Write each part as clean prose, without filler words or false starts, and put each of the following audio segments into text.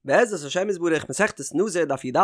בעזרת השם יתברך מסכת נזיר דף י"א,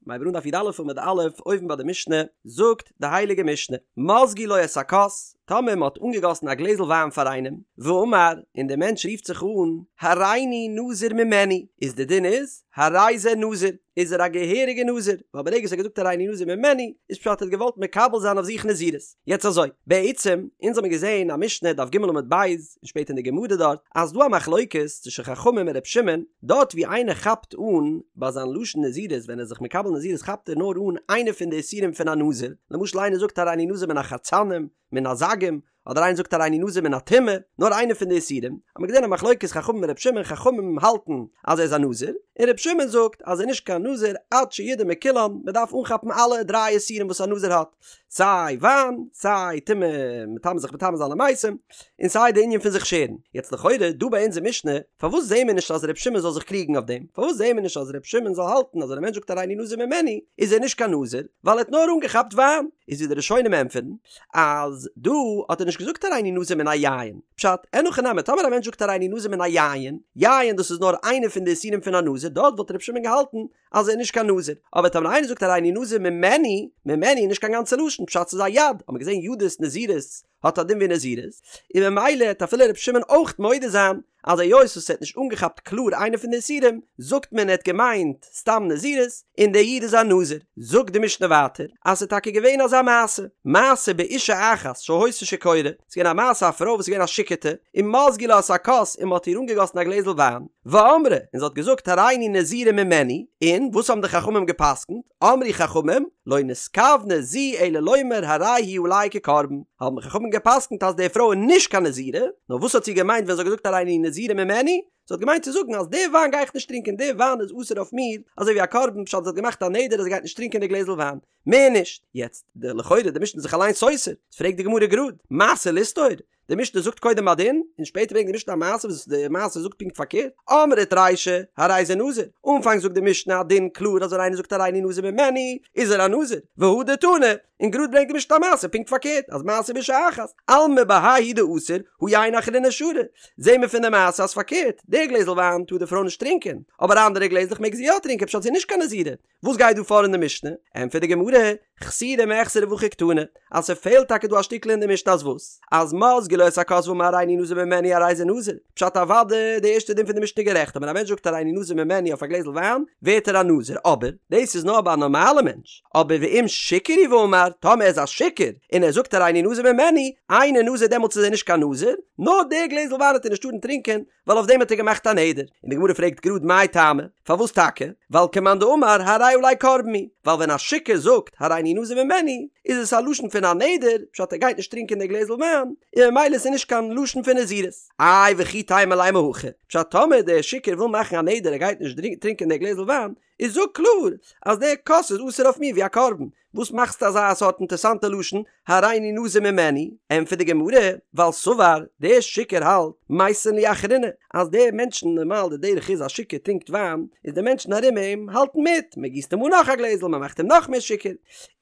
מ'הייבט אן דף י"א עמוד א', אויבן ביי די משנה, זאגט די הייליגע משנה, מזגו לו את הכוס, טאמער מען האט אנגעגאסן א גלעזל וויין פאר איינעם, ואמר, און דער מענטש רופט זיך אן, הריני נזיר ממנו, איז די דין איז, הרי זה נזיר, איז ער א געהעריגע נזיר, ווייל ברגע וואס ער האט געזאגט הריני נזיר ממנו, איז פשט ער האט געוואלט מקבל זיין אויף זיך נזירות. יעצט אזוי, בעצם, אונז האמיר געזען א משנה דף ג עמוד ב', און שפעטער אין די גמרא דארט, אז ס'דא א מחלוקת צווישן חכמים און ר' שמעון, דארט ווי איינער כאפט אן ביי זיין לשון נזירות ווען ער איז זיך מקבל נזירות כאפט ער נאר אן איינע פון די איסורים פון א נזיר, למשל איינער זאגט הריני נזיר מן החרצנים, מן הזגים, אדער איינער זאגט הריני נזיר מן הטומאה, נאר איינע פון די איסורים, האט מען געזען א מחלוקת חכמים און ר' שמעון, חכמים האלטן אז ער איז א נזיר, און ר' שמעון זאגט אז ער איז נישט קיין נזיר עד שידור מכולן, מען דארף אנכאפן אלע דריי איסורים וואס א נזיר האט, סיי וויין, סיי טומאה, מטמא זיך מטמא זיין למתים, און סיי די ענין פון זיך שערן. יעצט לכאורה דא ביי אונזער משנה, פארוואס זעהן מיר נישט אז ר' שמעון זאל זיך קריגן אויף דעם? פארוואס זעהן מיר נישט אז ר' שמעון זאל האלטן אז ווען א מענטש זאגט הריני נזיר ממנו איז ער נישט קיין נזיר, ווייל ער האט נאר אנגעכאפט וויין? איז ווי די ראשונים ענטפערן, אז דא האט ער נישט געזאגט הריני נזיר מן היין, פשט, אין הכי נמי, טאמער א מענטש זאגט הריני נזיר מן היין, יין דאס איז נאר איינע פון די איסורים פון א נזיר, דארט וואלט ר' שמעון געהאלטן אז ער איז נישט קיין נזיר, אבער טאמער איינער זאגט הריני נזיר ממנו, ממנו איז נישט קיין גאנצע לשון, פשט ס'איז א יד, האט מען געזען ידות נזירות האט א דין ווי נזירות, און ממילא העט אפילו ר' שמעון אויך מודה זיין אז היות וואס ער האט נישט אנגעכאפט קלאר איינע פון די איסורים, זאגט מען ער האט געמיינט סתם נזירות, און דער איד איז א נזיר. זאגט די משנה ווייטער אז ס'איז טאקע געווען אזא מעשה, מעשה באשה אחת שהיתה שיכורה, ס'איז געווען א מעשה א פרוי וואס איז געווען א שיכור'טע, ומזגו לה את הכוס און מ'האט איר אנגעגאסן א גלעזל וויין, ואמרה, און זי האט געזאגט הריני נזירה ממנו, און וואס האבן די חכמים גע'פסק'נט? אמרו חכמים, לא נתכוונה זו אלא לומר הרי הוא עלי כקרבן, האבן חכמים גע'פסק'נט אז די פרוי איז נישט קיין נזירה, נאר וואס האט זי געמיינט ווען זי האט געזאגט הריני נזירה ממנו? זי האט געמיינט צו זאגן אז די וויין גיי איך נישט טרינקען, די וויין איז אסור אויף מיר, אזוי ווי א קרבן, פשט זי האט געמאכט א נדר אז זי גייט נישט טרינקען די גלעזל וויין, מער נישט. יעצט, די לכאורה די משנה איז זיך אליין סותר, פרעגט די גמרא גראד, מעשה לסתור? די משנה זאגט קודם א דין, און שפעטער ברענגט די משנה א מעשה וואס די מעשה זאגט פונקט פארקערט, אמרת רישא, הרי זה נזיר, אנפאנג זאגט די משנה א דין קלאר אז ווען איינער זאגט הריני נזיר ממנו, איז ער א נזיר, והדר תני, און גראד ברענגט די משנה א מעשה פונקט פארקערט, אז מעשה באשה אחת, אלמא בהאי הוא דאסור, הא יין אחרינא שרי, זעהן מיר פון די מעשה אז פארקערט, די גלעזל וויין טאר די פרוי נישט טרינקען, אבער אנדערע גלעזלעך מעג זי יא טרינקען פשט זי איז נישט קיין נזירה, וואס גייט דא פאר אין די משנה? ענטפערט די גמרא, חסורי מחסרא והכי קתני, אז ס'פעלט טאקע דא א שטיקל אין די משנה אז וואס? אז מזגו לו את הכוס ואמר הריני נזיר ממנו הרי זה נזיר, פשט אוודאי די ערשטע דין פון די משנה גערעכט אז ווען א מענטש זאגט הריני נזיר ממנו אויף א גלעזל וויין ווערט ער א נזיר אבער דאס איז נאר ביי א נארמאלע מענטש אבער ואם שיכור הוא ואמר טאמער ער איז א שיכור און ער זאגט הריני נזיר ממנו אינו נזיר דעמאלטס איז ער נישט קיין נזיר נאר די גלעזל וויין וועט ער נישט טארן טרינקען ווייל אויף דעם האט ער געמאכט א נדר, און די גמרא פרעגט גראד מאי טעמא, פארוואס טאקע? ווייל כמאן דאמר הרי עלי קרבן הוא, ווייל ווען א שיכור זאגט הריני נזיר ממנו, איז עס א לשון פון א נדר, פשט ער גייט נישט טרינקען די גלעזל וויין, און ממילא איז עס נישט קיין לשון פון נזירות. איי וכי תימא לימא הכי, פשט טאמער דער שיכור וויל מאכן א נדר ער גייט נישט טרינקען די גלעזל וויין, איז זאג קלאר אז דער כוס איז אסור אויף מיר ווי א קרבן, וואס מאכסטו אזא סארט אינטערסאנטע לשון, הריני נזיר ממנו? ענטפערט די גמרא, ווייל סבר, דער שיכור האלט, מייתין לי אחריני, אז די מענטשן, נארמאל די דרך איז א שיכור טרינקט וויין, איז די מענטשן ארום אים האלטן מיט, מען גיסט אים אן נאך א גלעזל, מען מאכט אים נאך מער שיכור,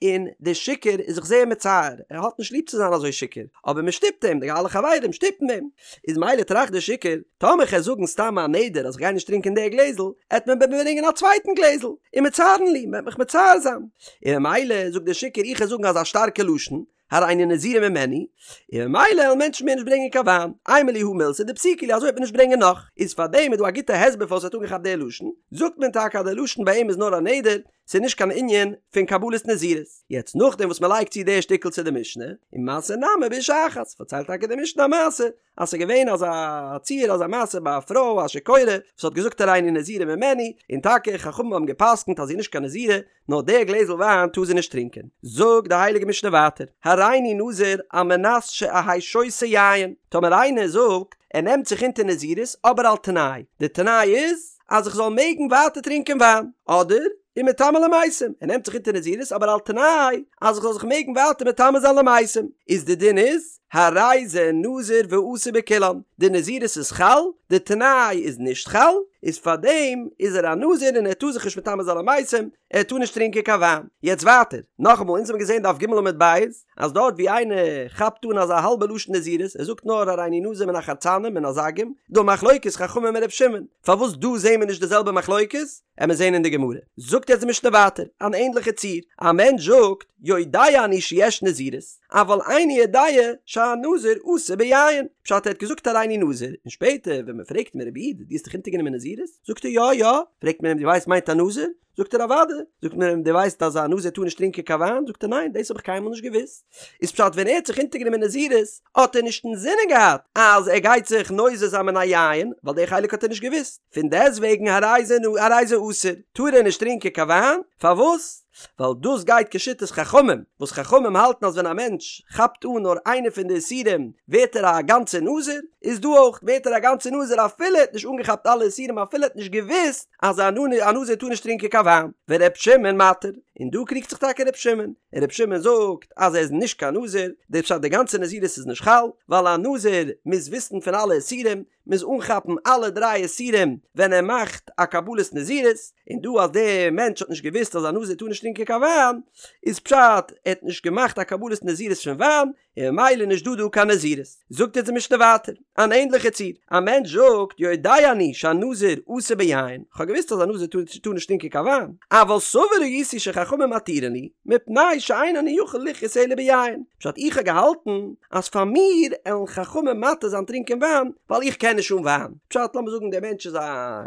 און דער שיכור איז זיך זייער מצער, ער האט נישט ליב צו זיין אזוי שיכור, אבער מען שטופט אים, די אלע חברים שטופן אים. איז מילא טראכט דער שיכור, טאמער כ'על זאגן סתם א נדר אז כ'גיי נישט טרינקען די גלעזל, עט מען מיר ברענגען א צווייטן גלעזל, ומצערין לי, מ'עט מיך מצער זיין. און ממילא זאגט דער שיכור איך על זאגן אזא שטארקע לשון, הריני נזירה ממנו, און ממילא עלן מענטשן מער נישט ברענגען קיין וויין, אימא לי הא מילתא דפסיקא לי אזוי וועט מען נישט ברענגען נאך. איז פארדעם איז דא א גוטע הסבר פארוואס ער האט אנגעכאפט די לשון, זאגט מען טאקע אז די לשון ביי אים איז נאר א נדר, ס'איז נישט קיין ענין פון קבלת נזירות. יעצט נאכדעם וואס מ'לייגט צו די שטיקל צו די משנה, ומעשה נמי באשה אחת, פארציילט טאקע די משנה א מעשה, אז ס'איז געווען אזא ציור אזא מעשה ביי א פרוי א שיכורה וואס האט געזאגט הריני נזירה ממנו, און טאקע חכמים האבן גע'פסק'נט אז זי איז נישט קיין נזירה, נאר די גלעזל וויין טאר זי נישט טרינקען. זאגט די הייליגע משנה ווייטער, הריני נזיר על מנת שאהא שותה יין, טאמער איינער זאגט ער נעמט זיך אונטער נזירות אבער על תנאי, די תנאי איז אז איך זאל מעגן ווייטער טרינקען וויין, אדער ומטמא למתים, ער נעמט זיך אונטער נזירות אבער על תנאי אז איך זאל זיך מעגן ווייטער מטמא זיין למתים, איז די דין איז, הרי זה נזיר ואסור בכולן, די נזירות איז חל, די תנאי איז נישט חל, איז פארדעם איז ער א נזיר און ער טאר זיך נישט מטמא זיין למתים, ער טאר נישט טרינקען קיין וויין. יעצט ווייטער, נאכאמאל, אונז האבן געזען דף ג עמוד ב', אז דארט ווי איינער כאפט אן אזא האלבע לשון נזירות, ער זאגט נאר הריני נזיר מן החרצנים מן הזגים, דא מחלוקת חכמים און ר' שמעון, פארוואס דא זעהן מיר נישט די זעלבע מחלוקת? עמיר זעהן אין די גמרא. זאגט יעצט די משנה ווייטער, אן ענדליכע ציור, א מענטש זאגט, יודע אני שיש נזירות, אבל איני יודע שהנזיר אסור ביין, פשט ער האט געזאגט הריני נזיר, און שפעטער ווען מען פרעגט אים רבי איד דו האסט דיך אונטערגענומען נזירות? זאגט ער יא יא, פרעגט מען אים דו ווייסט מיינט א נזיר? זאגט ער אוודאי, זאגט מען אים דו ווייסט אז א נזיר טאר נישט טרינקען קיין וויין? זאגט ער ניין דאס האב איך קיינמאל נישט געוואוסט, איז פשט ווען ער האט זיך אונטערגענומען נזירות האט ער נישט אינזינען געהאט אז ער גייט זיך נוזר זיין מן היין, ווייל די חלק האט ער נישט געוואוסט, פון דעסטוועגן הרי זה הרי זה אסור, טאר ער נישט טרינקען קיין וויין, פארוואס? ווייל דאס גייט כשיטת חכמים, וואס חכמים האלטן אז ווען א מענטש כאפט אן נאר איינע פון די איסורים ווערט ער א גאנצער נזיר, איז דא אויך ווערט ער א גאנצער נזיר אפילו ער האט נישט אנגעכאפט אלע איסורים אפילו ער האט נישט געוואוסט אז א נזיר טאר נישט טרינקען קיין וויין, ור' שמעון מתיר, און דא קריגט זיך טאקע ר' שמעון, און ר' שמעון זאגט אז ער איז נישט קיין נזיר, די פשט די גאנצע נזירות איז נישט חל, ווייל א נזיר מוז וויסן פון אלע איסורים, מוז אנכאפן אלע דריי איסורים ווען ער מאכט א קבלת נזירות, און דא אז דער מענטש האט נישט געוואוסט אז א נזיר טאר נישט טרינקען קיין וויין, איז פשט ער האט נישט געמאכט א קבלת נזירות פון וויין, און ממילא נישט דא דא קיין נזירות. זאגט אונז די משנה ווייטער, אן ענדליכע ציור, א מענטש זאגט יודע אני שהנזיר אסור ביין, כ'האב געוואוסט אז א נזיר טאר נישט טרינקען קיין וויין, אבל סבור הייתי שחכמים מתירין לי, מפני שאין אני יכול לחיות אלא ביין, פשט איך האב געהאלטן אז פאר מיר עלן חכמים מתיר זיין טרינקען וויין, ווייל איך קען נישט אן וויין, פשט לאמיר זאגן דער מענטש איז א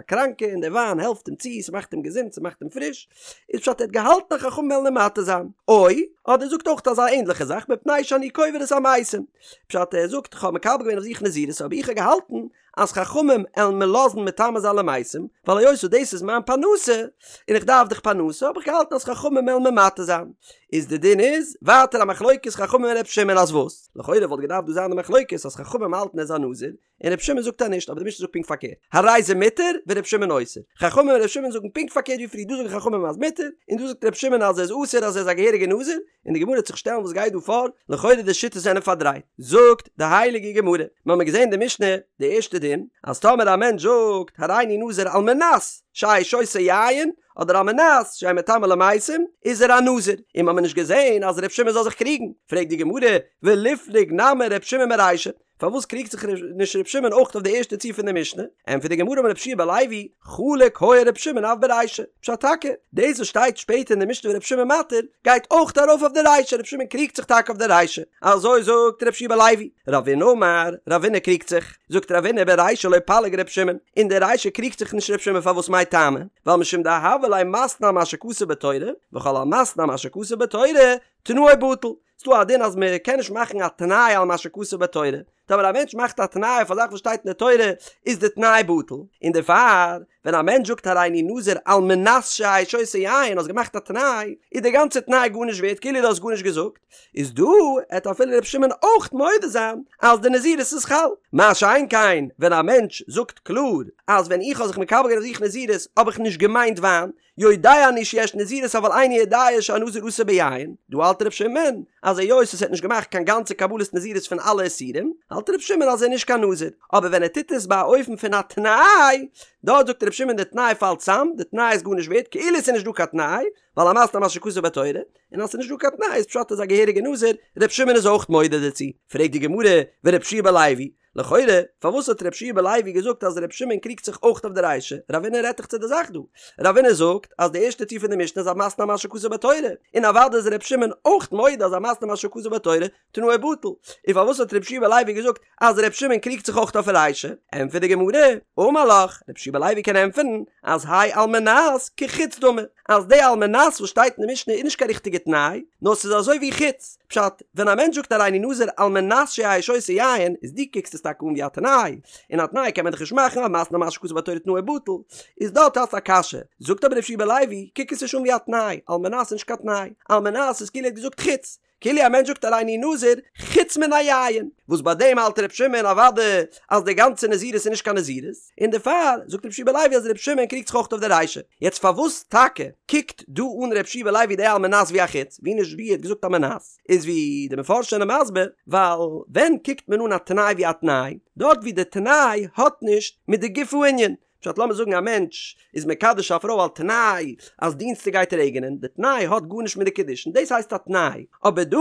קראנקע און דער וויין העלפט אים צו, ס'מאכט אים געזונט, ס'מאכט אים פריש, איז פשט ער האט געהאלטן אז חכמים וועלן אים מתיר זיין, או, אדער זאגט אויך אזא ענדליכע זאך מפני שאני קובר את המתים, פשט ער זאגט כ'האב מקבל געווען אויף זיך נזירות אבער איך האב געהאלטן אז חכמים עלן מיר לאזן מטמא זיין למתים, ווייל היות וואס דאס איז מיין פרנסה, און איך דארף דאך פרנסה, האב איך געהאלטן אז חכמים עלן מיר מתיר זיין. איז די דין איז, ווייטער א מחלוקת חכמים און ר' שמעון אז וואס? לכאורה וואלט געדארפט דא זיין די מחלוקת אז חכמים האלטן ער איז א נזיר, און ר' שמעון זאגט אז נישט, אבער די משנה זאגט פונקט פארקערט, הרי זה מותר ור' שמעון אוסר. חכמים און ר' שמעון זאגן פונקט פארקערט ווי פריער, דא זאגן חכמים אז מותר, און דא זאגט ר' שמעון אז ער איז אסור אז ער איז א געהעריגע נזיר, און די גמרא וועט זיך שטעלן וואס גייט דא פאר, לכאורה די שיטות זענען פארדרייט. זאגט די הייליגע גמרא, מיר האבן געזען די משנה, די ערשטע דין, אז טאמער א מענטש זאגט הריני נזיר על מנת שאהא שותה יין, אדער על מנת שאהא מטמא למתים, איז ער א נזיר, און מיר האבן נישט געזען אז ר' שמעון זאל זיך קריגן, פרעגט די גמרא, וליפלוג נמי ר' שמעון ברישא, פארוואס קריגט זיך נישט ר' שמעון אויך אויף די ערשטע ציור פון די משנה? ענטפערט די גמרא אמר רבי יהושע בן לוי, חלוק היה ר' שמעון אף ברישא, פשט טאקע, דאס וואס שטייט שפעטער אין די משנה ור' שמעון מתיר, גייט אויך ארויף אויף די רישא, ר' שמעון קריגט זיך טאקע אויף די רישא, אזוי זאגט רבי יהושע בן לוי, רבינא אמר, רבינא קריגט זיך, זאגט רבינא ברישא לא פליג ר' שמעון, אין די רישא קריגט זיך נישט ר' שמעון פארוואס מאי טעמא? ווייל משום דהוה ליה מתנה על מה שכתוב בתורה, וכל המתנה על מה שכתוב בתורה, תנאו בטל, ס'דא א דין אז מען קען נישט מאכן א תנאי על מה שכתוב בתורה, טאמער א מענטש מאכט א תנאי אויף א זאך וואס שטייט אין די תורה איז די תנאי בטל, און דערפאר ווען א מענטש זאגט הריני נזיר על מנת שאהא שותה יין האסט געמאכט א תנאי איז די גאנצע תנאי גארנישט ווערט כאילו דו האסט גארנישט געזאגט, איז דא עט אפילו ר' שמעון אויך מודה זיין אז די נזירות איז חל, מה שאין כן ווען א מענטש זאגט קלאר אז ווען איך האב זיך מקבל געווען אויף זיך נזירות האב איך נישט געמיינט וויין, יודע אני שיש נזירות אבל איני יודע שהנזיר אסור ביין, דא האלט ר' שמעון אז היות עס האט נישט געמאכט קיין גאנצע קבלת נזירות פון אלע איסורים, האלט ר' שמעון אז ער איז נישט קיין נזיר, אבער ווען ער טוט עס ביי א אופן פון א תנאי, דארט זאגט ר' שמעון די תנאי פאלט צאם, די תנאי איז גארנישט ווערט, כאילו עס איז נישט דא קיין תנאי, ווייל המתנה על מה שכתוב בתורה, און אז עס איז נישט דא קיין תנאי איז פשט ער איז א געהעריגע נזיר, ר' שמעון איז אויך מודה דערצו, פרעגט די גמרא, ור' יהושע בן לוי, לכאורה, פארוואס האט ר' יהושע בן לוי געזאגט אז ר' שמעון קריגט זיך אויך אויף די רישא? רבינא רעדט דאך צו די זאך דא. רבינא זאגט אז די ערשטע ציור פון די משנה איז המתנה על מה שכתוב בתורה, און אוודאי איז ר' שמעון אויך מודה אז המתנה על מה שכתוב בתורה תנאו בטל. און פארוואס האט ר' יהושע בן לוי געזאגט אז ר' שמעון קריגט זיך אויך אויף רישא? ענטפערט די גמרא, אמר לך, ר' יהושע בן לוי קען ענטפערן אז האי על מנת כחוץ דמי, אז די על מנת וואס שטייט אין די משנה איז נישט קיין ריכטיגע תנאי, נאר ס'איז אזוי ווי חוץ. פשט, ווען א מענטש זאגט הריני נזיר על מנת שאהא שותה יין, איז דו קוקסט עס טאקע אן ווי א תנאי, און א תנאי קען מען דאך נישט מאכן, המתנה על מה שכתוב בתורה תנאו בטל, איז דארט האסט א קשיא. זאגט אבער ר' יהושע בן לוי, קוק עס נישט אן ווי א תנאי, על מנת איז נישט קיין תנאי, על מנת איז כאילו ער האט געזאגט חוץ. כאילו א מענטש זאגט הריני נזיר חוץ מן היין, וואס ביי דעם האלט ר' שמעון אוודאי אז די גאנצע נזירות איז נישט קיין נזירות, און דערפאר זאגט ר' יהושע בן לוי אז ר' שמעון קריגט זיך אויך אויף די רישא. יעצט פארוואס טאקע קוקט דא אן ר' יהושע בן לוי די על מנת ווי א חוץ, ווי נישט ווי ער האט געזאגט על מנת, איז ווי די מפרשים זענען מסביר, ווייל ווען קוקט מען אן א תנאי ווי א תנאי, דארט ווי די תנאי האט נישט מיט די גוף הענין, פשט לאמיר זאגן א מענטש איז מקדש א פרוי על תנאי אז דינסטאג גייט רעגענען, די תנאי האט גארנישט מיט די קידושין, דאס הייסט א תנאי, אבער דא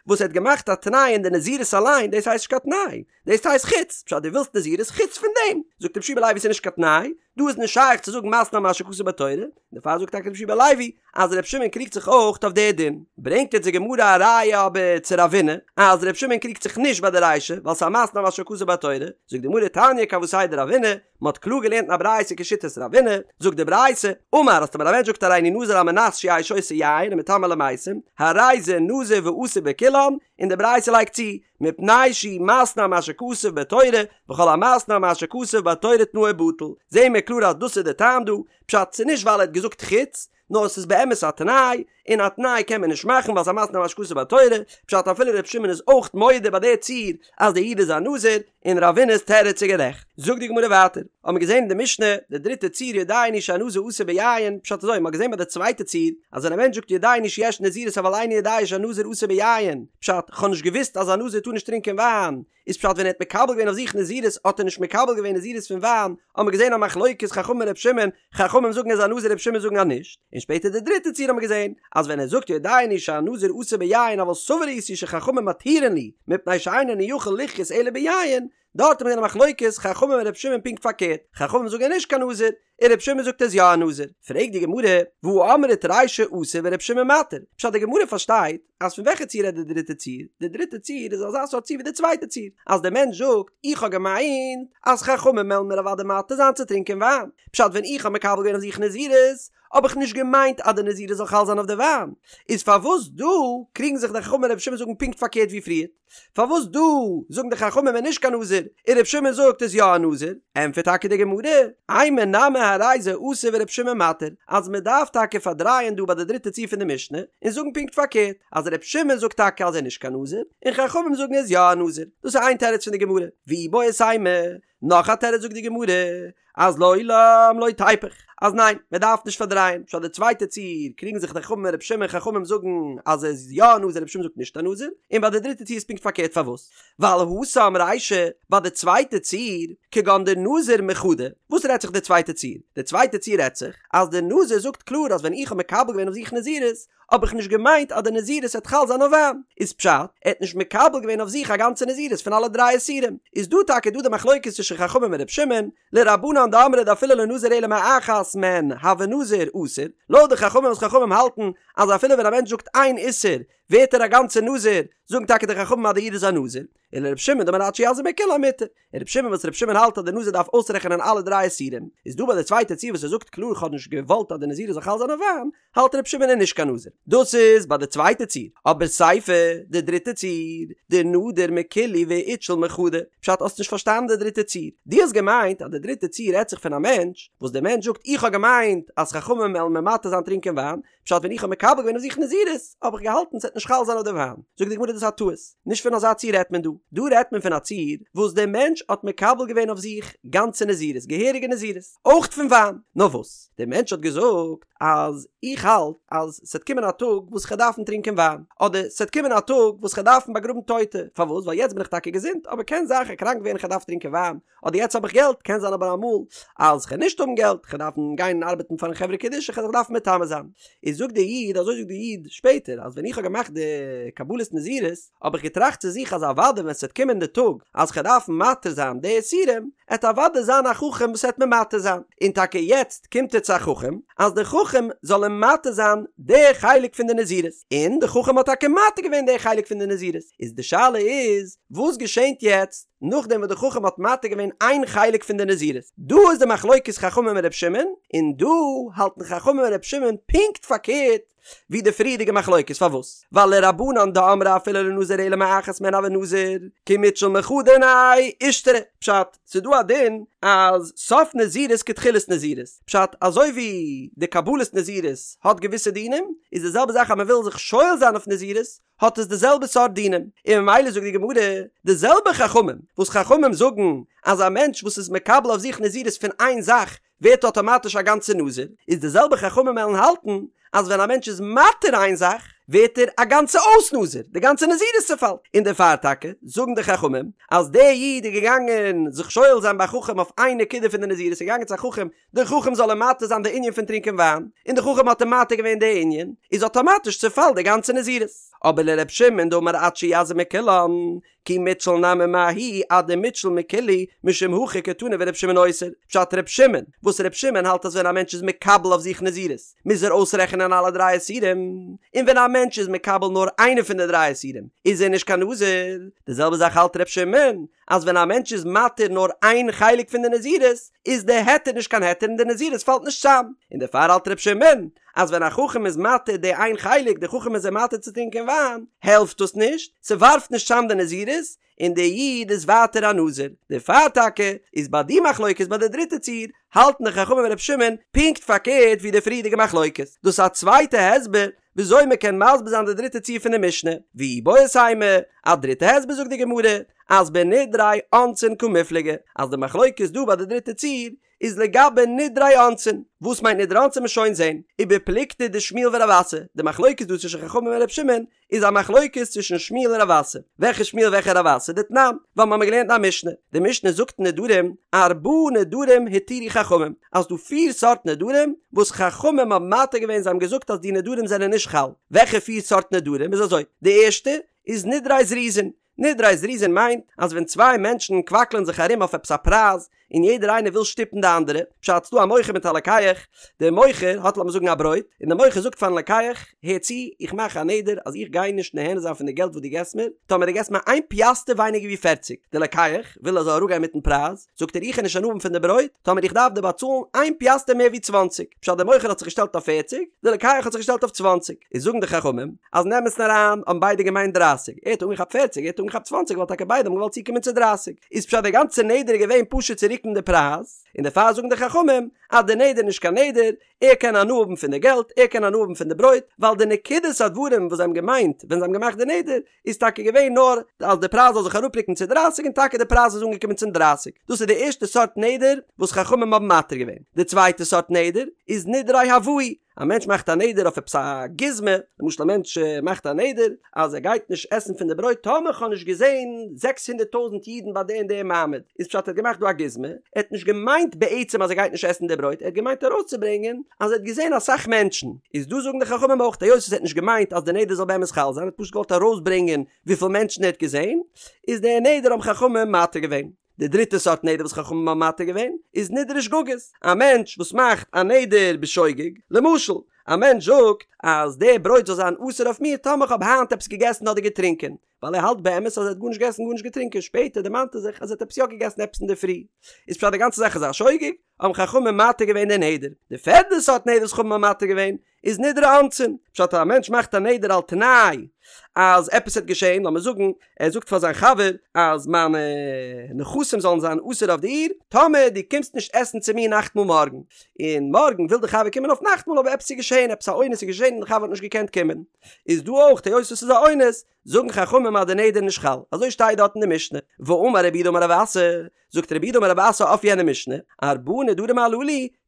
וואס ער האט געמאכט א תנאי אין די נזירות אליין, דאס הייסט נישט קיין תנאי, דאס הייסט חוץ, פשט דו ווילסט נזירות חוץ פון דעם, זאגט רבי יהושע בן לוי ס'איז נישט קיין תנאי, דא איז נישט שייך צו זאגן מתנה על מה שכתוב בתורה, דערפאר זאגט טאקע רבי יהושע בן לוי אז רבי שמעון קריגט זיך אויך אויף די דין. ברענגט יעצט די גמרא א ראיה אבער צו רבינא אז רבי שמעון קריגט זיך נישט ביי די רישא ווייל ס'איז א מתנה על מה שכתוב בתורה, זאגט די גמרא תניא כוותיה דרבינא, מ'האט קלאר געלערנט אין א ברייתא כשיטת רבינא, זאגט די ברייתא, אמר אז טאמער א מענטש זאגט הריני נזיר על מנת שיהא שותה יין ומטמא למתים, הרי זה נזיר ואסור בכולן, און די ברייתא לייגט צו, מפני שהוא מתנה על מה שכתוב בתורה, וכל המתנה על מה שכתוב בתורה תנאו בטל, זעהן מיר קלאר אז דאס איז די טעם דא, פשט ס'איז נישט ווייל ער האט געזאגט חוץ, נאר ס'איז באמת א תנאי, און א תנאי קען מען נישט מאכן ווייל ס'איז א מתנה על מה שכתוב בתורה, פשט אפילו ר' שמעון איז אויך מודה ביי די ציור אז די איד איז א נזיר, און רבינא'ס תירוץ איז גערעכט. זאגט די גמרא ווייטער, האבן מיר געזען אין די משנה, די דריטע ציור יודע אני שהנזיר אסור ביין, פשט אזוי, מ'האט געזען ביי די צווייטע ציור, אז ווען א מענטש זאגט יודע אני שיש נזירות אבל איני יודע שהנזיר אסור ביין, פשט, כ'האב נישט געוואוסט אז א נזיר טאר נישט טרינקען וויין, איז פשט ווען ער האט מקבל געווען אויף זיך נזירות האט ער נישט מקבל געווען נזירות פון וויין, האבן מיר געזען א מחלוקת חכמים ר' שמעון, חכמים זאגן ער איז א נזיר ר' שמעון זאגן אז נישט, און שפעטער די דריטע ציור האבן מיר געזען אז ווען ער זאגט יודע אני שהנזיר אסור ביין אבל סבור הייתי שחכמים מתירין לי מפני שאין אני יכול לחיות אלא ביין, דארט האט מען געזען א מחלוקת חכמים און ר' שמעון פונקט פארקערט, חכמים זאגן ער איז נישט קיין נזיר, און ר' שמעון זאגט ער איז יא א נזיר, פרעגט די גמרא, והא אמרת רישא אסור ור' שמעון מתיר, פשט די גמרא פארשטייט אז פון וועלכע ציור רעדט די דריטע ציור, די דריטע ציור איז אזא סארט ציור ווי די צווייטע ציור, אז דער מענטש זאגט, איך האב געמיינט אז חכמים וועלן מיר אוודאי מתיר זיין צו טרינקען וויין, פשט ווען איך האב מקבל געווען אויף זיך נזירות, האב איך נישט געמיינט אז די נזירות זאל חל זיין אויף די וויין, איז פארוואס דא קריגן זיך די חכמים און ר' שמעון זאגן פונקט פארקערט ווי פריערט? פארוואס דא זאגן די חכמים ער איז נישט קיין נזיר און ר' שמעון זאגט איז יא א נזיר? ענטפערט טאקע די גמרא, אימא נמי הרי זה אסור ור' שמעון מתיר, אז מען דארף טאקע פארדרייען דא ביי די דריטע ציור פון די משנה און זאגן פונקט פארקערט, אז ר' שמעון זאגט טאקע אז ער איז נישט קיין נזיר און חכמים זאגן ער איז יא א נזיר, דאס איז איין תירוץ פון די גמרא, ואיבעית אימא, נאך א תירוץ זאגט די גמרא, אז לעולם לא תיפוך, אז ניין, מען דארף נישט פארדרייען, פשט די צווייטע ציור קריגן זיך די חכמים און רבי שמעון, חכמים זאגן אז ער איז יא א נזיר רבי שמעון זאגט נישט א נזיר, און ביי די דריטע ציור איז פונקט פארקערט פארוואס? ווייל התם רישא, ביי די צווייטע ציור, כגון דנזר מחדא, וואס רעדט זיך די צווייטע ציור? די צווייטע ציור רעדט זיך אז די נזיר זאגט קלאר אז ווען איך האב מקבל געווען אויף זיך נזירות, האב איך נישט געמיינט אז די נזירות וועט חל זיין אויף וויין, איז פשט, ער האט נישט מקבל געווען אויף זיך א גאנצע נזירות פון אלע דריי איסורים, איז דא טאקע דא די מחלוקת צווישן חכמים און ר' שמעון, לרבנן דאמרי דאפילו לא נזר אלא מאחת מהן הוי נזיר אסור, לויט די חכמים וואס חכמים האלטן אז אפילו ווען א מענטש זאגט איין איסור ווערט ער א גאנצע נזיר, זאגן טאקע די חכמים אז די איד איז א נזיר, און לר' שמעון דאמר עד שיזיר מכולן מותר, און ר' שמעון וואס ר' שמעון האלט אז די נזיר דארף אויסרעכענען אלע דריי איסורים, איז דא ביי די צווייטע ציור וואס ער זאגט קלאר כ'האב נישט געוואלט אז די נזירות זאל חל זיין אויף וויין, האלט ר' שמעון איז נישט קיין נזיר. דאס איז ביי די צווייטע ציור. אבער סיפא, די דריטע ציור, דנדר מכולהו ואיתשיל מחדא. פשט האסט נישט פארשטאנען די דריטע ציור. דו האסט געמיינט אז די דריטע ציור רעדט זיך פון א מענטש, וואס דער מענטש זאגט איך האב געמיינט אז חכמים וועלן מיר מתיר זיין טרינקען וויין, פשט ווען איך האב מקבל געווען אויף זיך נזירות האב איך געהאלטן ס'וועט נישט חל זיין אויף די וויין. זאגט די גמרא דאס איז א טעות. נישט פון אזא ציור רעדט מען דא. דא רעדט מען פון א ציור וואס דער מענטש האט מקבל געווען אויף זיך גאנצע נזירות, געהעריגע נזירות, אויך פון וויין. נאר וואס? דער מענטש האט געזאגט אז איך האלט אז ס'עט קומען א טאג וואס כ'עט דארפן טרינקען וויין, אדער ס'עט קומען א טאג וואס כ'עט דארפן באגראבן טויטע, פארוואס? ווייל יעצט בין איך טאקע געזונט, אבער קען זיין כ'עט קראנק ווערן כ'עט דארפן טרינקען וויין, אדער יעצט האב איך געלט, קען זיין אבער אמאל אז כ'עט נישט האבן געלט, כ'עט דארפן גיין ארבעטן פארן חברה קדישא, כ'עט זיך דארפן מטמא זיין. איז זאגט דער איד, אזוי זאגט דער איד שפעטער, אז ווען איך האב געמאכט די קבלת נזירות, האב איך געטראכט צו זיך אז אוודאי ווען ס'וועט קומען די טאג אז כ'וועל דארפן מתיר זיין די איסורים, עט אוודאי זיין א חכם וואס עט מיר מתיר זיין, און טאקע יעצט קומט ער צו א חכם אז די חכם זאל אים מתיר זיין די חלק פון די נזירות, און די חכם האט טאקע מתיר געווען די חלק פון די נזירות, איז די שאלה איז וואס געשענט יעצט נאכדעם וואס די חכם האט מתיר געווען איין חלק פון די נזירות, דא איז די מחלוקת חכמים און ר' שמעון, און דא האלטן חכמים און ר' שמעון פונקט פארקערט. ווי די פריערדיגע מחלוקת, פארוואס? ווייל לרבנן דאמרי אפילו לא נזר אלא מאחת מהן הוי נזיר, כי מיתשיל מחדא מיניה אישתרי, פשט, ס'איז דא א דין אז סוף נזירות כתחילת נזירות, פשט, אזוי ווי די קבלת נזירות האט געוויסע דינים, איז די זעלבע זאך אז מ'וויל זיך שואל זיין אויף נזירות, האט עס די זעלבע סארט דינים, און ממילא זאגט די גמרא, די זעלבע חכמים וואס חכמים זאגן אז א מענטש וואס איז מקבל אויף זיך נזירות פון איין זאך ווערט אטאמאטיש א גאנצע נזיר, איז די זעלבע חכמים וועלן האלטן אז ווען א מענטש איז מתיר איין זאך ווערט ער א גאנצע אויס נזיר, די גאנצע נזירות צעפאלט, און דערפאר טאקע זאגן די חכמים אז דער איד איז געגאנגען זיך שואל זיין ביי חכם אויף איין נקודה פון די נזירות, איז געגאנגען צו א חכם דער חכם זאל אים מתיר זיין די ענין פון טרינקען וויין, און דער חכם האט אים מתיר געווען די ענין, איז אטאמאטיש צעפאלט די גאנצע נזירות. אבער לר' שמעון דאמר עד שיזיר מכולן, כי מיתשיל נמי מההיא עד דמיתשיל מכולהו, משום הכי קתני ור' שמעון אוסר. פשט ר' שמעון, וואס ר' שמעון האלט אז ווען א מענטש איז מקבל אויף זיך נזירות, מוז ער אויסרעכענען אלע דריי איסורים, און ווען א מענטש איז מקבל נאר איינע פון די דריי איסורים, איז ער נישט קיין נזיר. די זעלבע זאך האלט ר' שמעון, אז ווען א מענטש איז מתיר נאר איין חלק פון די נזירות, איז די היתר נישט קיין היתר און די נזירות פאלט נישט צאם, און דערפאר האלט ר' שמעון אז ווען א חכם איז מתיר די איין חלק, די חכם איז אים מתיר צו טרינקען וויין, העלפט דאס נישט, ס'ווארפט נישט צאם די נזירות, און די איד איז ווייטער א נזיר. דערפאר טאקע איז ביי די מחלוקת ביי די דריטע ציור, האלטן די חכמים און ר' שמעון פונקט פארקערט ווי די פריערדיגע מחלוקת. דאס איז א צווייטע הסבר וויאזוי מען קען מסביר זיין די דריטע ציור פון די משנה, ואיבעית אימא, א דריטע הסבר זאגט די גמרא, אז בנדרי אונסין קמיפלגי, אז די מחלוקת דא ביי די דריטע ציור איז לגבי נדרי אונסין, וואס מיינט נדרי אונסין מ'עט שוין זעהן, ובפלוגתא דשמואל ורב אסי, די מחלוקת דא צווישן חכמים און ר' שמעון איז א מחלוקת צווישן שמואל און רב אסי, וועלכע שמואל וועלכע רב אסי, דתנן, ווייל מ'האמיר געלערנט אין א משנה, די משנה זאגט אין נדרים, ארבעה נדרים התירו חכמים, אז ס'דא פיר סארט נדרים וואס חכמים האבן מתיר געווען זיי האבן געזאגט אז די נדרים זענען נישט חל, וועלכע פיר סארט נדרים איז אזוי, די ערשטע איז נדרי זריזין, נדרי זריזין מיינט אז ווען צוויי מענטשן קוואקלען זיך ארום אויף עפעס א פרייז און יעדער איינער וויל שטופן די אנדערע, פשט ס'דא א מוכר מיט א לוקח, דער מוכר האט לאמיר זאגן א ברויט, און דער מוכר זאגט פארן לוקח, הער צו, איך מאך א נדר אז איך גיי נישט נהנה זיין פון די געלט וואס דו געסט מיר, טאמער דו געסט מיר איין פיאסטער ווייניגער ווי פערציג, דער לוקח וויל ער זאל אראפגיין מיטן פרייז, זאגט ער איך וועל נישט הנאה האבן פון די ברויט, טאמער איך דארף דיר באצאלן איין פיאסטער מער ווי צוואנציג, פשט דער מוכר האט זיך געשטעלט אויף פערציג, דער לוקח האט זיך געשטעלט אויף צוואנציג, איז זאגן די חכמים אז אין אמת'ן אריין האבן ביידע געמיינט דרייסיג, ער האט אנגעכאפט פערציג ער האט אנגעכאפט צוואנציג ווייל טאקע ביידע האבן געוואלט צוקומען צו דרייסיג, איז פשט דער גאנצער נדר איז געווען פשוט צו רוקן די פרייז, און דערפאר זאגן די חכמים אז דער נדר איז נישט קיין נדר, ער קען הנאה האבן פון די געלט, ער קען הנאה האבן פון די ברויט, ווייל די נקודת הדברים וואס זיי האבן געמיינט ווען זיי האבן געמאכט די נדר, איז טאקע געווען נאר אז די פרייז זאל זיך אראפרוקן צו דרייסיג און טאקע די פרייז איז אנגעקומען צום דרייסיג. דאס איז די ערשטע סארט נדר וואס חכמים האבן מתיר געווען. די צווייטע סארט נדר איז נדרי הבאי, א מענטש מאכט א נדר אויף עפעס א גוזמא, למשל א מענטש מאכט א נדר אז ער גייט נישט עסן פון די ברויט טאמער כ'האב נישט געזען זעקס הונדערט טויזנט אידן ביי די און די מעמד, איז פשט ער האט געמאכט דא א גוזמא, ער האט נישט געמיינט בעצם אז ער גייט נישט עסן די ברויט, ער האט געמיינט ארויסצוברענגען אז ער האט געזען אסאך מענטשן, איז דא זאגן די חכמים אויך היות ער האט נישט געמיינט אז די נדר זאל באמת חל זיין, ער האט פשוט געוואלט ארויסברענגען וויפיל מענטשן ער האט געזען, איז די נדר האבן חכמים מתיר געווען. די דריטע סארט נדר וואס חכמים האבן מתיר געווען איז נדרי שגגות, א מענטש וואס מאכט א נדר בשוגג, למשל, א מענטש זאגט אז די ברויט זאל זיין אסור אויף מיר טאמער איך האב היינט עפעס געגעסן אדער געטרינקען, ווייל ער האלט באמת אז ער האט גארנישט געגעסן גארנישט געטרינקען, שפעטער דערמאנט ער זיך אז ער האט עפעס יא געגעסן עפעס אינדערפרי, איז פשט די גאנצע זאך איז א שוגג, האבן חכמים מתיר געווען די נדר. די פערדע סארט נדר וואס חכמים האבן מתיר געווען איז נדרי אונסין, פשט אז א מענטש מאכט א נדר על תנאי אז עפעס וועט געשען, לאמיר זאגן ער זאגט פאר זיין חבר אז מיינע נכסים זאלן זיין אסור אויף דיר טאמער דו קומסט נישט עסן צו מיר נאכטמאל מארגן, און מארגן וויל די חבר קומען אויף נאכטמאל אבער עפעס איז געשען, עפעס א אונס איז געשען און די חבר האט נישט געקענט קומען, איז דא אויך היות עס איז א אונס זאגן חכמים אז די נדר איז נישט חל, אזוי שטייט דארט אין די משנה, ואמר רב יהודה אמר רב אסי, זאגט רב יהודה אמר רב אסי אויף יענע משנה, ארבעה נדרים הללו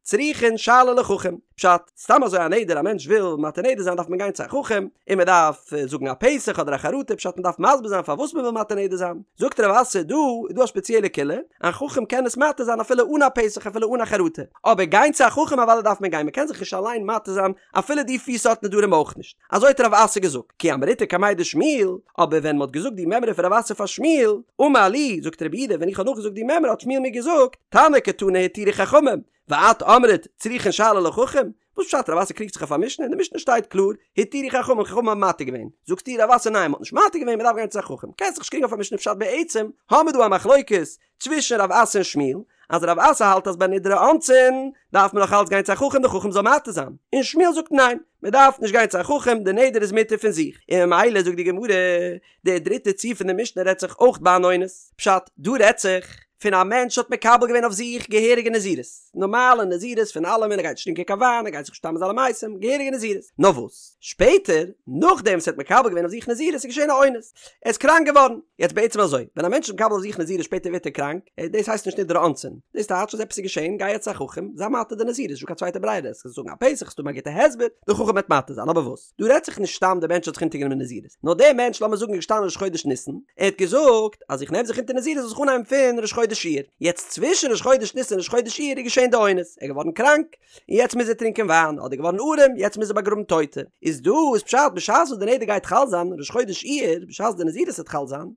צריכין שאלה לחכם, פשט, סתם אזוי א נדר א מענטש וויל מתיר נדר זיין דארף מען גיין צו א חכם, און מען דארף זאגן א פתח אדער א חרטה, פשט מען דארף מסביר זיין פארוואס מען וויל מתיר נדר זיין, זאגט רב אסי דא איז דא א ספעציעלע קולא, א חכם קען עס מתיר זיין אפילו אן א פתח אפילו אן א חרטה, אבער גיין צו א חכם אוודאי דארף מען גיין מען קען זיך נישט אליין מתיר זיין אפילו די פיר סארט נדרים אויך נישט. אזוי האט רב אסי געזאגט, כי אמריתה קמיה דשמואל, אבער ווען מ'האט געזאגט די מימרא פון רב אסי פאר שמואל, אמר לי, זאגט רב יהודה, ווען איך האב נאכגעזאגט די מימרא האט שמואל מיר געזאגט, תנא קתני התירו חכמים, ואת אמרת צריכין שאלה לחכם? וואס פשט רב אסי קריגט זיך אויף א משנה? אין די משנה שטייט קלאר, התירו חכמים, חכמים האבן מתיר געווען. זאגסטו רב אסי ניין מ'האט נישט מתיר געווען מ'דארף גיין צו א חכם. קענסט זיך נישט קריגן אויף א משנה פשט בעצם האמיר דא א מחלוקת צווישן רב אסי און שמואל. אז רב אסי האלט אז ביי נדרי אונסין דארף מען נאך אלץ גיין צו א חכם די חכם זאל מתיר זיין, און שמואל זאגט ניין, מען דארף נישט גיין צו א חכם די נדר איז מותר פון זיך, און ממילא זאגט די גמרא, די דריטע ציור פון די משנה רעדט זיך אויך ביי אן אונס, פשט, דא רעדט זיך פון א מענטש האט מקבל געווען אויף זיך געהעריגע נזירות, נארמאלע נזירות פון אלעמען, ער גייט נישט טרינקען קיין וויין, ער גייט זיך נישט מטמא זיין למתים, געהעריגע נזירות, נאר וואס שפעטער נאכדעם וואס ער האט מקבל געווען אויף זיך נזירות איז געשען א אונס, ער איז קראנק געווארן, יעצט בעצם אזוי, ווען א מענטש איז מקבל אויף זיך נזירות שפעטער ווערט ער קראנק, דאס הייסט נישט נדרי אונסין, דאס טייטש אז עפעס איז געשען, גיי יעצט צו א חכם, זיי מתיר די נזירות, נישטא קיין צווייטע ברירה, עסט זאגן א פתח, עסט האבן א גוטע הסבר, די חכם וועט מתיר זיין, אבער וואס? דא רעדט זיך נישט סתם דער מענטש האט זיך אונטערגענומען נזירות, נאר דער מענטש לאמיר זאגן איז געשטאנען ראש חודש ניסן, ער האט געזאגט אז איך נעם זיך אונטער נזירות זאל זיך אנהייבן פון ראש חודש אייר, יעצט צווישן ראש חודש ניסן און ראש חודש אייר איז געשען די אונס, ער איז געווארן קראנק, און יעצט מוז ער טרינקען וויין, אדער געווארן ארעם, יעצט מוז ער באגראבן טויטע, איז דא איז פשט בשעת וואס די נדר גייט חל זיין, ראש חודש אייר, בשעת די נזירות וועט חל זיין,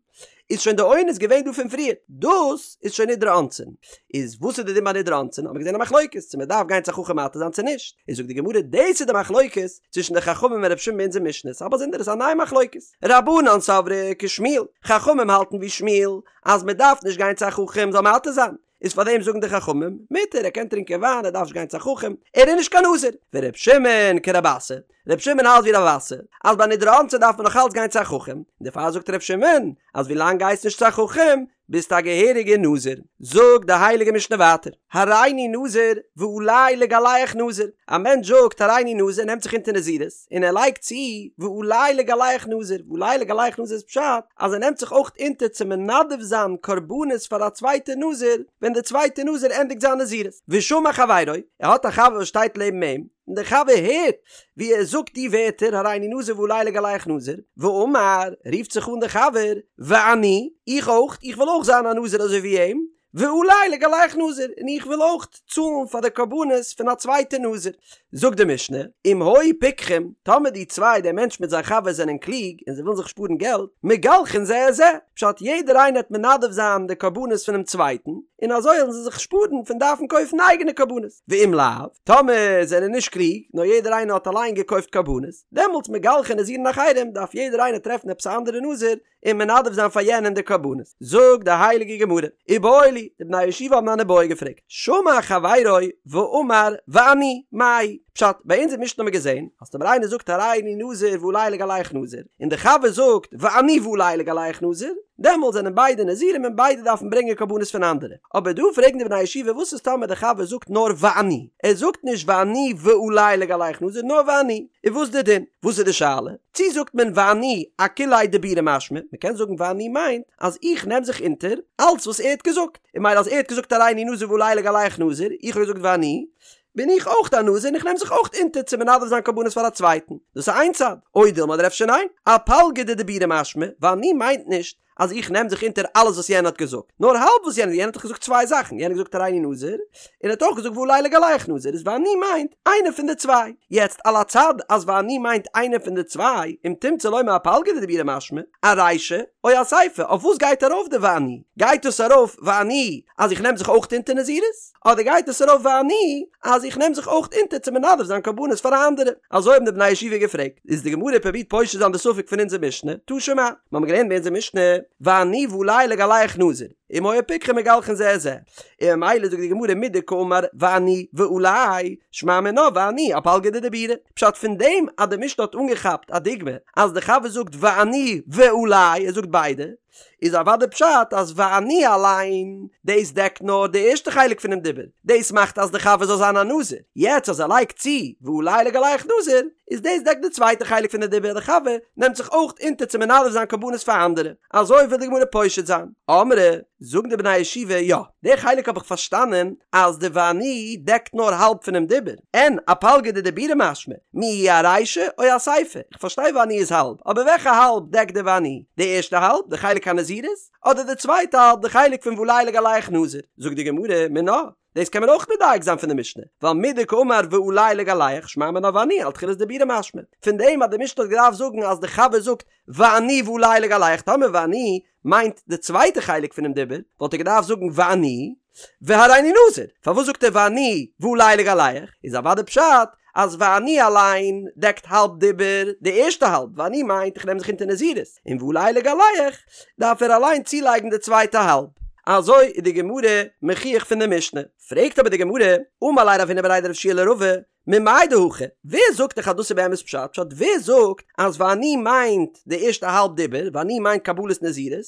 איז שוין די אונס געווען דא פון פריער, דאס איז שוין נדרי אונסין. איז וואס איז די דין ביי נדרי אונסין, האט מען געזען א מחלוקת צו מען דארף גיין צו א חכם מתיר זיין צו נישט, איז זאגט די גמרא דאס איז די מחלוקת צווישן די חכמים און רבי שמעון ביי אונזער משנה, ס'איז א באזונדערע ס'איז א נייע מחלוקת, רבנן סברי כשמואל, חכמים האלטן ווי שמואל אז מען דארף נישט גיין צו א חכם זאל מתיר זיין, איז פאר דעם זאגן די חכמים, מותר, ער קען טרינקען וויין, ער דארף נישט גיין צו א חכם, ער איז נישט קיין נזיר. ור' שמעון כרב אסי, ר' שמעון האלט ווי רב אסי, אז ביי נדרי אונסין דארף מען נאך אלץ גיין צו א חכם, און דערפאר זאגט ר' שמעון, אז ווי לאנג גייסט נישט צו א חכם, ביסטו א געהעריגער נזיר. זאגט די הייליגע משנה ווייטער, הריני נזיר ועלי לגלח נזיר, א מענטש זאגט הריני נזיר, נעמט זיך אונטער נזירות, און ער לייגט צו ועלי לגלח נזיר, ועלי לגלח נזיר איז פשט אז ער נעמט זיך אויך אונטער צו מנדב זיין קרבנות פאר א צווייטע נזיר ווען דער צווייטע נזיר ענדיגט זיין נזירות, ושמע חברו, ער האט א חבר וואס שטייט לעבן אים, און דער חבר הערט ווי ער זאגט די ווערטער הריני נזיר ועלי לגלח נזיר, ואמר, רופט זיך אן דער חבר, ואני, איך אויך, איך וויל אויך זיין א נזיר אזוי ווי אים, ועלי לגלח נזיר, און איך וויל אויך צאלן פאר די קרבנות פון א צווייטע נזיר. זאגט די משנה, אם היו פיקחים, טאמער די צוויי, דער מענטש מיט זיין חבר זענען קלוג און זיי ווילן זיך שפארן געלט, מגלחין זה את זה, פשט יעדער איינער וועט מנדב זיין די קרבנות פונעם צווייטן, און אזוי וועלן זיי זיך שפארן פון דארפן קויפן אייגענע קרבנות. ואם לאו, טאמער זענען נישט קלוג, נאר יעדער איינער האט אליין געקויפט קרבנות, דעמאלטס מגלחין נזירין אחרים, דארף יעדער איינער טרעפן עפעס א אנדערע נזיר, און מנדב זיין פאר יענעם די קרבנות. זאגט די הייליגע גמרא, איבעיא להו, די בני הישיבה האבן אן איבעיא געפרעגט, שמע חברו ואמר ואני, מאי? פשט, ביי אונזער משנה האבן מיר געזען, אז טאמער איינער זאגט הריני נזיר ועלי לגלח נזיר, און דער חבר זאגט ואני ועלי לגלח נזיר, דעמאלט זענען ביידע נזירים און ביידע דארפן ברענגען קרבנות פון אנדערע. אבער דא פרעגן די בני הישיבה וואס איז טאמער דער חבר זאגט נאר ואני, ער זאגט נישט ואני ועלי לגלח נזיר נאר ואני, איז וואס די דין? וואס איז די שאלה? צי זאגט מען ואני אכוליה דיבורא משמע, מען קען זאגן ואני מיינט אז איך נעם זיך אונטער אלץ וואס ער האט געזאגט, און ממילא אז ער האט געזאגט הריני נזיר ועלי לגלח נזיר, איך האב געזאגט ואני, בין איך אויך א נזיר און איך נעם זיך אויך אונטער צו מנדב זיין קרבנות פאר א צווייטן, דאס איז איין צד, או דילמא אדער אפשר ניין, אפלגא דדיבורא משמע, ואני מיינט נישט אז איך נעם זיך אונטער אלעס וואס יענער האט געזאגט, נאר האלב וואס יענער, יענער האט דאך געזאגט צוויי זאכן, יענער האט געזאגט הריני נזיר, און ער האט אויך געזאגט ועלי לגלח נזיר, איז ואני מיינט איינע פון די צוויי. יעצט על הצד אז ואני מיינט איינע פון די צוויי, אם תמצא לומר אפלגא דדיבורא משמע, ארישא, או אסיפא, אויף וואס גייט ארויף די ואני? גייט דאס ארויף ואני אז איך נעם זיך אויך אונטער נזירות? אדער גייט עס ארויף ואני אז איך נעם זיך אויך אונטער צו מנדב זיין קרבנות פאר אנדערע? אזוי האבן די בני הישיבה געפרעגט, איז די גמרא פרובירט פושט זיין די ספק פון אונזער משנה, תא שמע, מיר האבן געלערנט ביי אונזער משנה, ואני ועלי לגלח נזיר, אם היו פיקחים מגלחין זה את זה, און ממילא זאגט די גמרא מדקאמר ואני ועלי, שמע מינה ואני אפלגא דדיבורא, פשט פון דעם אז די משנה האט אנגעכאפט א דוגמא אז די חבר זאגט ואני ועלי, ער זאגט ביידע, איז אוודאי פשט אז ואני אליין, דאס דעקט נאר די ערשטע חלק פונעם דיבור, דאס מאכט אז די חבר זאל זיין א נזיר, יעצט אז ער לייגט צו ועלי לגלח נזיר, איז דאס דעקט די צווייטע חלק פון די דיבור אז די חבר נעמט זיך אויך אונטער צו מנדב זיין קרבנות פאר אנדערע, אזוי וויל די גמרא פושט זיין. אמרי, זאגן די בני הישיבה, יא, די חלק האב איך פארשטאנען אז די ואני דעקט נאר האלב פונעם דיבור, אין אפלגא דדיבורא משמע, מיהו ארישא או אסיפא, איך פארשטיי ואני איז האלב, אבער וועלכע האלב דעקט די ואני? די ערשטע האלב, די חלק הנזירות? אדער די צווייטע האלב, די חלק פון ועלי לגלח נזיר? זאגט די גמרא, מינה, דאס קען מען אויך מדייק זיין פון די משנה, ווייל מדקאמר ועלי לגלח שמע מינה ואני על תחילת דיבורא משמע, פון דעם אז די משנה האט געדארפט זאגן אז די חבר זאגט ואני ועלי לגלח, טאמער ואני מיינט די צווייטע חלק פונעם דיבור, וואלט ער געדארפט זאגן ואני והריני נזיר, פארוואס זאגט ער ואני ועלי לגלח? איז אוודאי פשט אז ואני אליין דעקט האלב דיבור, די ערשטע האלב, ואני מיינט איך נעם זיך אונטער נזירות, און ועלי לגלח דארף ער אליין צולייגן די צווייטע האלב. אזוי איז די גמרא מוכיח פון די משנה. פרעגט אבער די גמרא, אמר ליה רב הונא בריה דרב יהושע לרבא, ממאי דהכי, ווער זאגט דיך אז דאס איז באמת פשט? פשט ווער זאגט אז ואני מיינט די ערשטע האלב דיבור, ואני מיינט קבלת נזירות,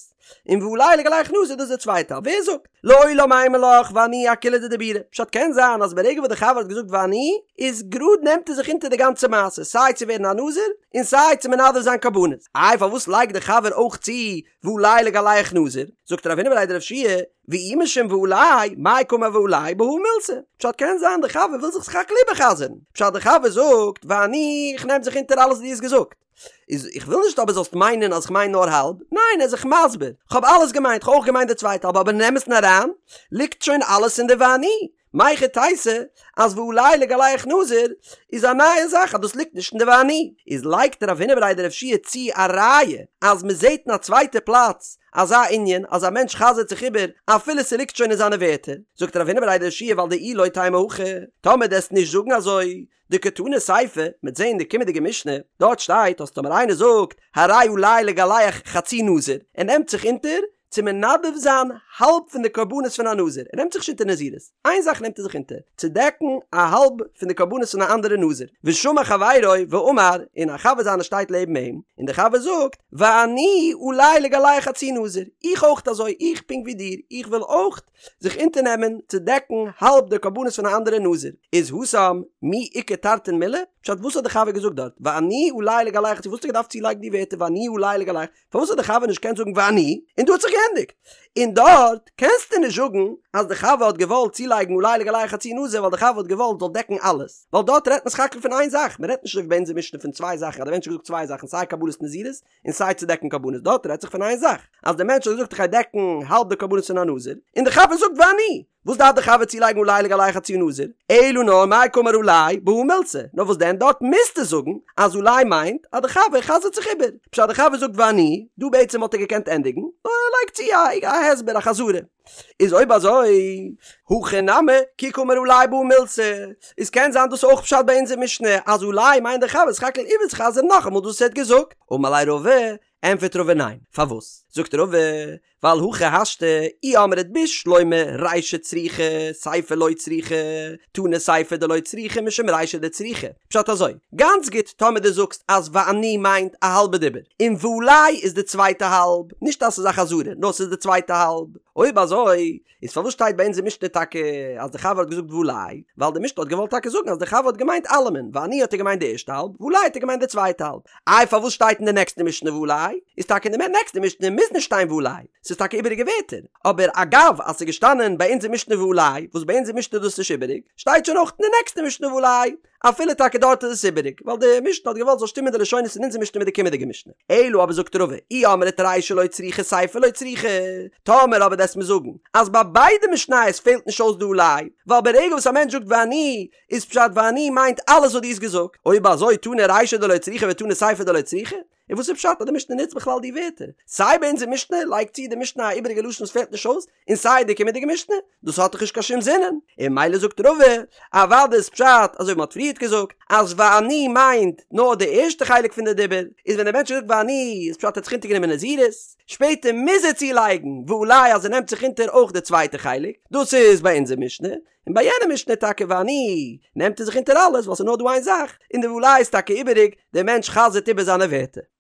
און ועלי לגלח נזיר דאס איז די צווייטע האלב, ווער זאגט? לעולם אימא לך ואני אכוליה דדיבורא, פשט קען זיין אז ברגע וואס די חבר האט געזאגט ואני, איז גראד נעמט ער זיך אונטער די גאנצע מעשה, סיי צו ווערן א נזיר, און סיי צו מנדב זיין קרבנות. איי פארוואס לייגט די חבר אויך צו ועלי לגלח נזיר? זאגט רב הונא בריה דרב יהושע ואי משום ועלי, מאי קאמר ועלי, בהא מילתא. פשט קען זיין די חבר וויל זיך סך הכל איבער'חזר'ן. פשט די חבר זאגט, ואני, איך נעם זיך אונטער אלעס וואס דו האסט געזאגט. איז איך וויל נישט אבער זאלסט מיינען אז כ'מיין נאר האלב. ניין ער איז זיך מסביר. כ'האב אלעס געמיינט, כ'האב אויך געמיינט די צווייטע האלב אבער אין אמת'ן אריין ליגט שוין אלעס אין די ואני. מהיכי תיתי אז ועלי לגלח נזיר איז א נייע זאך אז דאס ליגט נישט אין די ואני. איז לייגט רב הונא בריה דרב יהושע צו א ראיה אז מ'זעט אין א צווייטע פלאץ אזא ענין אז א מענטש חזר'ט זיך איבער אפילו ס'ליגט שוין אין זיינע ווערטער, זאגט רב הונא בריה דרב יהושע ווייל דאי לא תימא הכי, טאמער דו וועסט נישט זאגן אזוי, דקתני סיפא, מ'עט זעהן אין די קומענדיגע משנה, דארט שטייט אז טאמער איינער זאגט הרי עלי לגלח חצי נזיר, ער נעמט זיך אונטער צו מנדב זיין האלב פון די קרבנות פון א נזיר, ער נעמט זיך נישט אונטער נזירות, איין זאך נעמט ער זיך אונטער, צו דעקן א האלב פון די קרבנות פון א אנדערע נזיר, ושמע חברו ואמר, און א חבר זיינער שטייט לעבן אים, און דער חבר זאגט, ואני עלי לגלח חצי נזיר, איך אויך אזוי, איך פונקט ווי דיר, איך וויל אויך זיך אונטערנעמען צו דעקן האלב די קרבנות פון א אנדערע נזיר, איז התם מי איכא תרתין מילי? פשט וואס האט די חבר געזאגט דארט, ואני עלי לגלח חצי, וואס האט ער געדארפט צולייגן די ווערטער ואני עלי לגלח, פארוואס האט די חבר נישט געקענט זאגן ואני, און דא האט זיך געענדיגט? און דארט קענסטו נישט זאגן אז די חבר האט געוואלט צולייגן עלי לגלח חצי נזיר ווייל די חבר האט געוואלט זאל דעקן אלעס, ווייל דארט רעדט מען סך הכל פון איין זאך, מען רעדט נישט אזוי ווי ביי אונזער משנה פון צוויי זאכן אז די מענטש האט געזאגט צוויי זאכן סיי קבלת נזירות און סיי צו דעקן קרבנות, דארט רעדט זיך פון איין זאך אז די מענטש האט געזאגט איך גיי דעקן האלב די קרבנות פון א נזיר, און די חבר זאגט ואני. וואס דארף די חבר צולייגן עלי לגלח חצי נזיר? אלא נאר מאי קאמר עלי בהא מילתא, נאר וואס דען דארט מוזטו זאגן אז עלי מיינט אז די חבר חזר'ט זיך איבער, פשט די חבר זאגט ואני, דא בעצם וואלט ער געקענט ענדיגן, נאר ער לייגט צו א הסבר א חזרה. איז אויב אזוי, הכא נמי, כי קאמר עלי בהא מילתא, איז קען זיין דאס אויך פשט ביי אונזער משנה אז עלי מיינט די חבר סך הכל איבערצוחזר'ן נאכאמאל דאס וואס ער האט געזאגט, אמר ליה רבא, ענפערט רבא ניין, פארוואס? זאגט רבא, ווייל הכי השתא, אי אמרת בשלמא רישא צריכא, סיפא לא צריכא, תנא סיפא דלא צריכא משום רישא דצריכא. פשט אזוי, גאנץ גוט טאמער דו זאגסט אז ואני מיינט א האלבע דיבור, און ועלי איז די צווייטע האלב, נישט אז ס'איז א חזרה, נאר ס'איז די צווייטע האלב. אויב אזוי, איז פארוואס שטייט ביי אונזער משנה טאקע אז די חבר האט געזאגט ועלי? ווייל די משנה האט געוואלט טאקע זאגן אז די חבר האט געמיינט אלעמען, ואני האט ער געמיינט די ערשטע האלב, ועלי האט ער געמיינט די צווייטע האלב. איי פארוואס שטייט אין די נעקסטע משנה ועלי? איז טאקע אין די נעקסטע משנה מוז נישט שטיין ועלי, ס'איז טאקע איבעריגע ווערטער, אבער אגב אז ס'איז געשטאנען ביי אונזער משנה ועלי, וואס ביי אונזער משנה איז דאס נישט איבעריג, שטייט שוין אויך אין די נעקסטע משנה ועלי, אפילו טאקע דארט איז עס איבעריג, ווייל די משנה האט געוואלט זאל שטימען די לשונות אין אונזער משנה מיט די קומענדיגע משנה. אלא אבער זאגט רבא, אי אמרת רישא לא צריכא סיפא לא צריכא, טאמער אבער וועסט מיר זאגן אז ביי ביידע משניות פעלט נישט אויס די עלי, ווייל ברגע וואס א מענטש זאגט ואני, איז פשט ואני מיינט אלעס וואס דו האסט געזאגט, אויב אזוי תנא רישא דלא צריכא ותנא סיפא דלא צריכא, און וואס איז פשט אז די משנה נוצט בכלל די ווערטער? סיי ביי אונזער משנה לייגט צו די משנה א איבעריגע לשון וואס פעלט נישט אויס, און סיי די קומענדיגע משנה, דאס האט דאך נישט קיין שום זינען. און ממילא זאגט רבא, אוודאי איז פשט אזוי ווי מען האט פריערט געזאגט, אז ואני מיינט נאר די ערשטע חלק פון די דיבור, איז ווען דער מענטש זאגט ואני איז פשט ער האט זיך אונטערגענומען נזירות, שפעטער מוז ער צולייגן ועלי אז ער נעמט זיך אונטער אויך די צווייטע חלק, דאס איז ביי אונזער משנה, און ביי יענע משנה טאקע ואני נעמט ער זיך אונטער אלעס ווייל ס'איז נאר דא איין זאך, און די ועלי איז טאקע איבעריג, דער מענטש חזר'ט איבער זיינע ווערטער.